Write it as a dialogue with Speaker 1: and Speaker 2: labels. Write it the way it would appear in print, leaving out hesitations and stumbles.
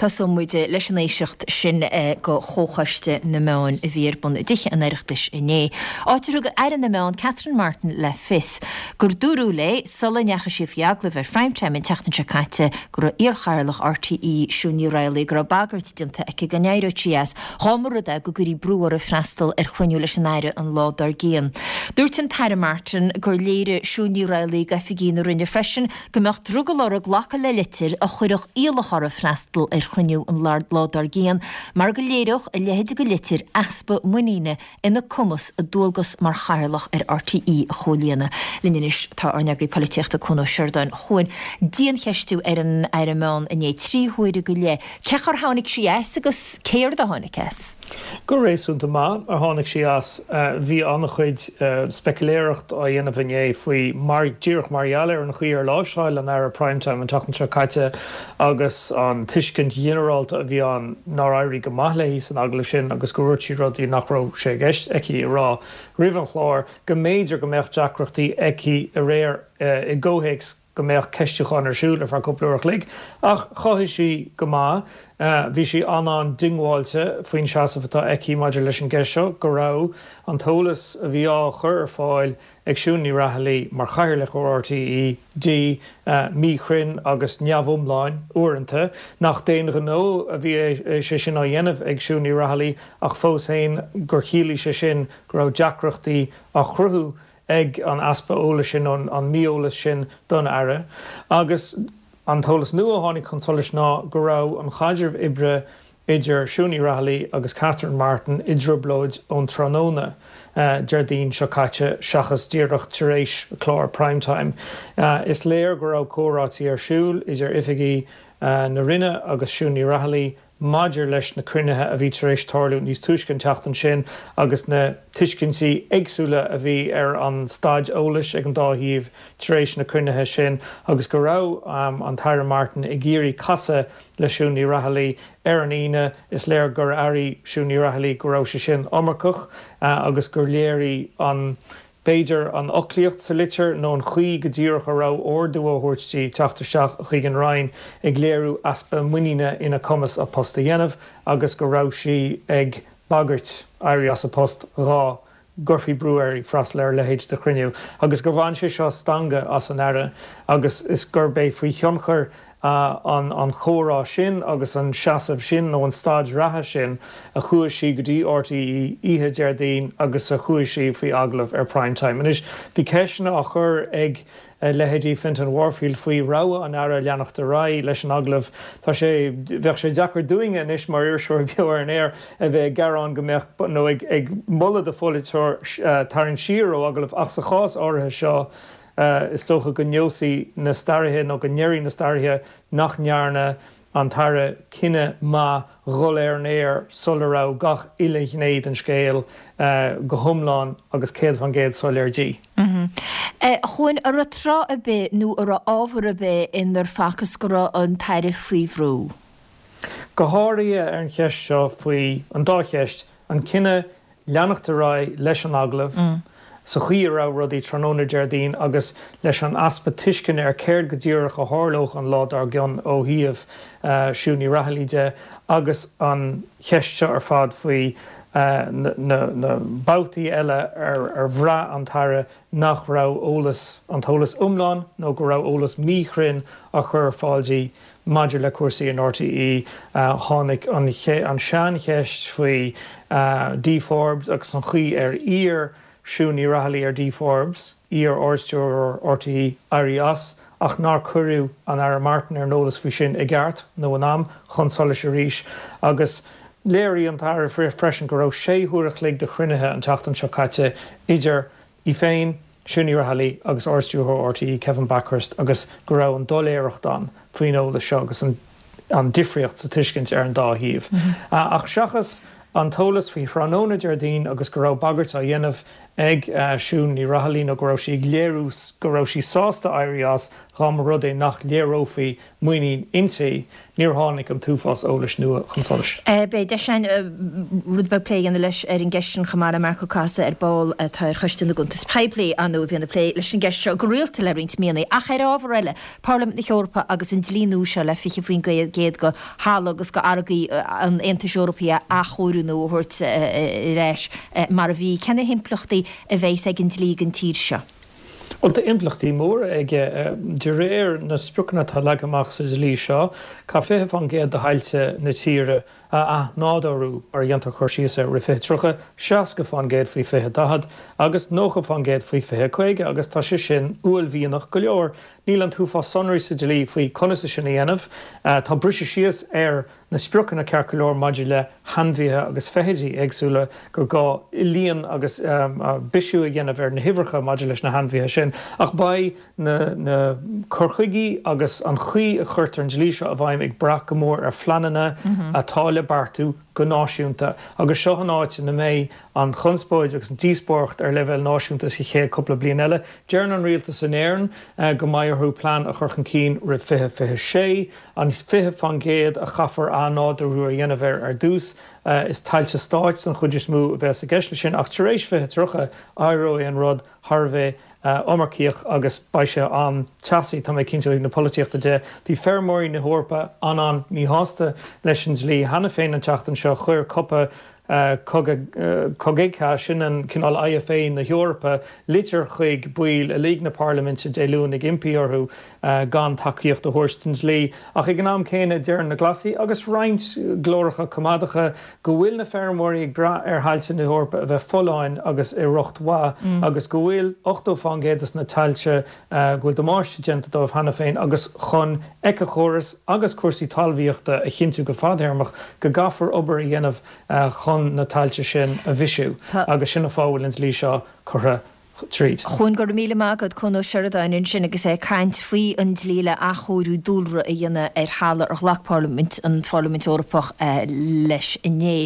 Speaker 1: tosóidh muid leis an éisteacht sin go Chomhchoiste na Meán a bhí ar bun i dTithe an Oireachtais inné, áit ar thug Aire na Meán Catherine Martin le fios gur dúradh léi sula ndeachaigh sí faoi agallamh ar Prime Time an tseachtain seo caite go raibh iarchathaoirleach RTÉ Siún Ní Raghallaigh go raibh bagairt déanta aici go n-éireodh sí as dá mba rud é go gcuirí brú uirthi freastal ar chruinniú leis an Aire an lá dár gcionn. Dúirt an tAire Martin gur léirigh Siún Ní Raghallaigh d'oifigigh na Roinne freisin go mbeadh drogall uirthi glacadh le litir a chuirfeadh iallach uirthi freastal ar chruinniú an lá dár gcionn mar go léireodh a leithéid de litir easpa muiníne ina cumas a dualgas mar chathaoirleach ar RTÉ a chomhlíonadh. Linn anois tá ár n-eagraí polaitíochta Cuan Ó Seireadáin. A Chuain, diancheistiú ar an Aire Meán inné, 3 huaire go leith. Cé chor tháinig sí as agus céard a tháinig as?
Speaker 2: Go réasúnta maith a tháinig sí as. Bhí an-chuid speiciléireacht á dhéanamh inné faoi mar, díreach mar gheall ar an chaoi ar láimhseáil an Aire Prime Time an tseachtain seo caite agus an tuiscint ghinearálta a bhí ann nár éirigh go maith léi san agallamh sin agus go ndúirt sí rudaí nach raibh sé i gceist aici a rá roimh an chlár, go mb'fhéidir go mbeadh deacrachtaí aici aréir i gcomhthéacs go mbeadh ceistiúchán ar siúl ar feadh cúpla uair a chloig. Ach chothaigh sí go maith. Bhí sí an-an-diongbháilte faoin seasamh atá aici maidir leis an gceist seo, go raibh an t-eolas a bhí á chur ar fáil ag Siún Ní Raghallaigh mar Chathaoirleach ar RTÉ di, míchruinn agus neamhiomlán uaireanta. Nach d'aon ghnó a bhí sé sin á dhéanamh ag Siún Ní Raghallaigh ach fós féin gur chiallaigh sé sin go raibh deacrachtaí á chruthú ag an easpa eolais sin nó an mí-eolas sin don Aire. Agus an t-eolas nua a tháinig chun solais ná go raibh an chaidreamh oibre idir Siún Ní Raghallaigh agus Catherine Martin i dtrioblóid ón tráthnóna Déardaoin seo caite seachas díreach tar éis chlár Prime Time. Is léir go raibh comhráití ar siúl idir oifigigh na Roinne agus Siún Ní Raghallaigh maidir leis na cruinnithe a bhí tar éis tarlú níos túisce an tseachtain sin agus na tuiscintí éagsúla a bhí ar an staid eolais ag an dá thaobh tar éis na cruinnithe sin agus go raibh an tAire Martin ag iarraidh casadh le Siún Ní Raghallaigh ar an Aoine. Is léir gur airigh Siún Ní Raghallaigh go raibh sé sin iomarcach agus gur léirigh an, b'fhéidir, an fhoclaíocht sa litir nó an chaoi go díreach a raibh ordú á thabhairt di teacht isteach chuig an Roinn ag léiriú easpa muiníne ina cumas a post a dhéanamh agus go raibh sí ag bagairt éirí as a post dhá gcuirfí brú uirthi freastal ar a leithéid de chruinniú agus gur bhain sé seo stangadh as an Aire agus is gurb é faoi thionchar an chomhrá sin agus an seasamh sin nó an staid reatha sin a chuaigh sí go dtí RTÉ oíche Déardaoin agus a chuaigh sí faoi agallamh ar Prime Time. Anois bhí ceisteanna á chur ag leithéidí Fintan Warfield faoi rogha an Aire leanacht ar aghaidh leis an agallamh. Tá sé, bheadh sé deacair dúinne anois mar iriseoirí beo ar an aer a bheith ag gearán go mbeadh, nó ag ag moladh do pholaiteoir tarraingt siar ó agallamh ach sa chás áirithe seo is dócha go neosfaidh na staraithe nó go ndéarfaidh na staraithe nach ndearna an tAire cinneadh maith dhul ar an aer sula raibh gach uile ghné den scéal go hiomlán agus 100% soiléir di.
Speaker 1: A Chuain, an raibh tráth ar bith nó an raibh ábhar ar bith inar facthas go raibh an tAire faoi bhrú?
Speaker 2: Go háirithe ar an cheist seo faoi, an dá cheist, an cinneadh leanacht ar aghaidh leis an agallamh, sa chaoi a raibh rudaí tráthnóna Déardaoin agus leis an easpa tuisceana ar céard go díreach a tharlódh an lá dár gcionn ó thaobh Siún Ní Raghallaigh de agus an cheist seo ar fad faoi na babhtaí eile ar bhraith an tAire nach raibh eolas, an t-eolas iomlán nó go raibh eolas míchruinn á chur ar fáil di Maidir le cúrsaí in RTÉ, tháinig an seancheist faoi Dee Forbes agus an chaoi ar iarr Siún Ní Raghallaigh ar Dee Forbes, iar-Ardstiúrthóir RTÉ, éirí as, ach nár cuireadh an Aire Martin ar an eolas faoi sin i gceart nó in am, chun solais arís. Agus léirigh an tAire freisin go raibh sé huaire a chloig de chruinnithe an tseachtain seo caite idir í féin, Siún Ní Raghallaigh agus Ard-Stiúrthóir RTÉ Kevin Bakhurst agus go raibh an doiléireacht ann faoin eolas seo agus an difríocht sa tuiscint ar an dá thaobh. Ach seachas an t-eolas faoi thráthnóna Déardaoin agus go raibh bagairt á dhéanamh ag Siún Ní Raghallaigh nó go raibh sí ag léiriú go raibh sí sásta éirí as dá mba rud é nach léireofaí muinín inti, níor tháinig an t-uafás eolais nua chun solais.
Speaker 1: Beidh deis againn rud beag plé a dhéanamh leis ar an gceist sin chomh maith le Marc Ó Cathasaigh ar ball atá ar Choiste na gCuntas Poiblí, ar ndóigh, a bhíonn ag plé leis an gceist seo go rialta le roinnt míonna. Ach ar ábhar eile, Parlaimint na hEorpa agus an dlí nua seo le 20% de thalamh agus de fharraigí an Aontais Eorpaigh a athchóiriú nó a thabhairt ar ais mar a bhí, cé na himpleachtaí a bheas ag an dlí don tír seo?
Speaker 2: Bhuel, tá impleachtaí móra aige. De réir na spriocanna atá leagtha amach sa dlí seo, caithfear 20% de thailte na tíre a athnádúrú, mar a dhéantar cur síos air, roimh 2030, 60% faoi 2040 agus 90% faoi 2050 agus tá sé sin uaillmhianach go leor. Níl an t-uafás sonraí sa dlí faoi conas é sin a dhéanamh. Tá briseadh síos ar na spriocanna ceart go leor maidir le hainmhithe agus feithidí éagsúla gur gá líon agus bisiú a dhéanamh ar na huimhreacha maidir leis na hainmhithe sin ach beidh na na cur chuigí agus an chaoi a chuirtear an dlí seo i bhfeidhm ag brath go mór ar phleananna atá le beartú go náisiúnta agus seo an áit ina mbeidh an chonspóid agus an díospóireacht ar leibhéal náisiúnta sa chéad cúpla bliain eile. Deireann an rialtas in Éirinn go mbeidh orthu plean a chur chun cinn roimh 2026. An 20% a chaithfear athnádúrú a dhéanamh air ar dtús, is tailte stáit den chuid is mó a bheas i gceist leis sin, ach tar éis 2030, éireoidh an rud thar a bheith iomarcaíoch agus beidh sé an-teasaí, tá mé cinnte, ó thaobh na polaitíochta de. Bhí feirmeoirí na hEorpa an-an-míshásta leis an dlí cheana féin an tseachtain seo. Chuir Copa Cogeca, sin an cineál IFA na hEorpa, litir chuig baill uilig na Parlaiminte Dé Luain ag impí orthu gan tacaíocht a thabhairt don dlí. Ach ag an am céanna, deireann na Glasaigh agus roinnt glóracha coimeádacha go bhfuil na feirmeoirí ag brath ar thailte na hEorpa a bheith folláin agus i riocht mhaith agus go bhfuil 80% de na tailte go bhfuil damáiste déanta dóibh cheana féin agus chun éiceachóras agus cúrsaí talmhaíochta a chinntiú go fadthéarmach go gcaithfear obair a dhéanamh chun na tailte sin a bhisiú agus sin an fáth a bhfuil an dlí seo curtha tríd.
Speaker 1: A Chuain, go raibh míle maith agat. Cuan Ó Seireadáin ansin agus é ag caint faoi an dlí le athchóiriú dúlra a dhéanamh ar thalamh ar ghlac Parlaimint an Pharlaimint Eorpach leis inné.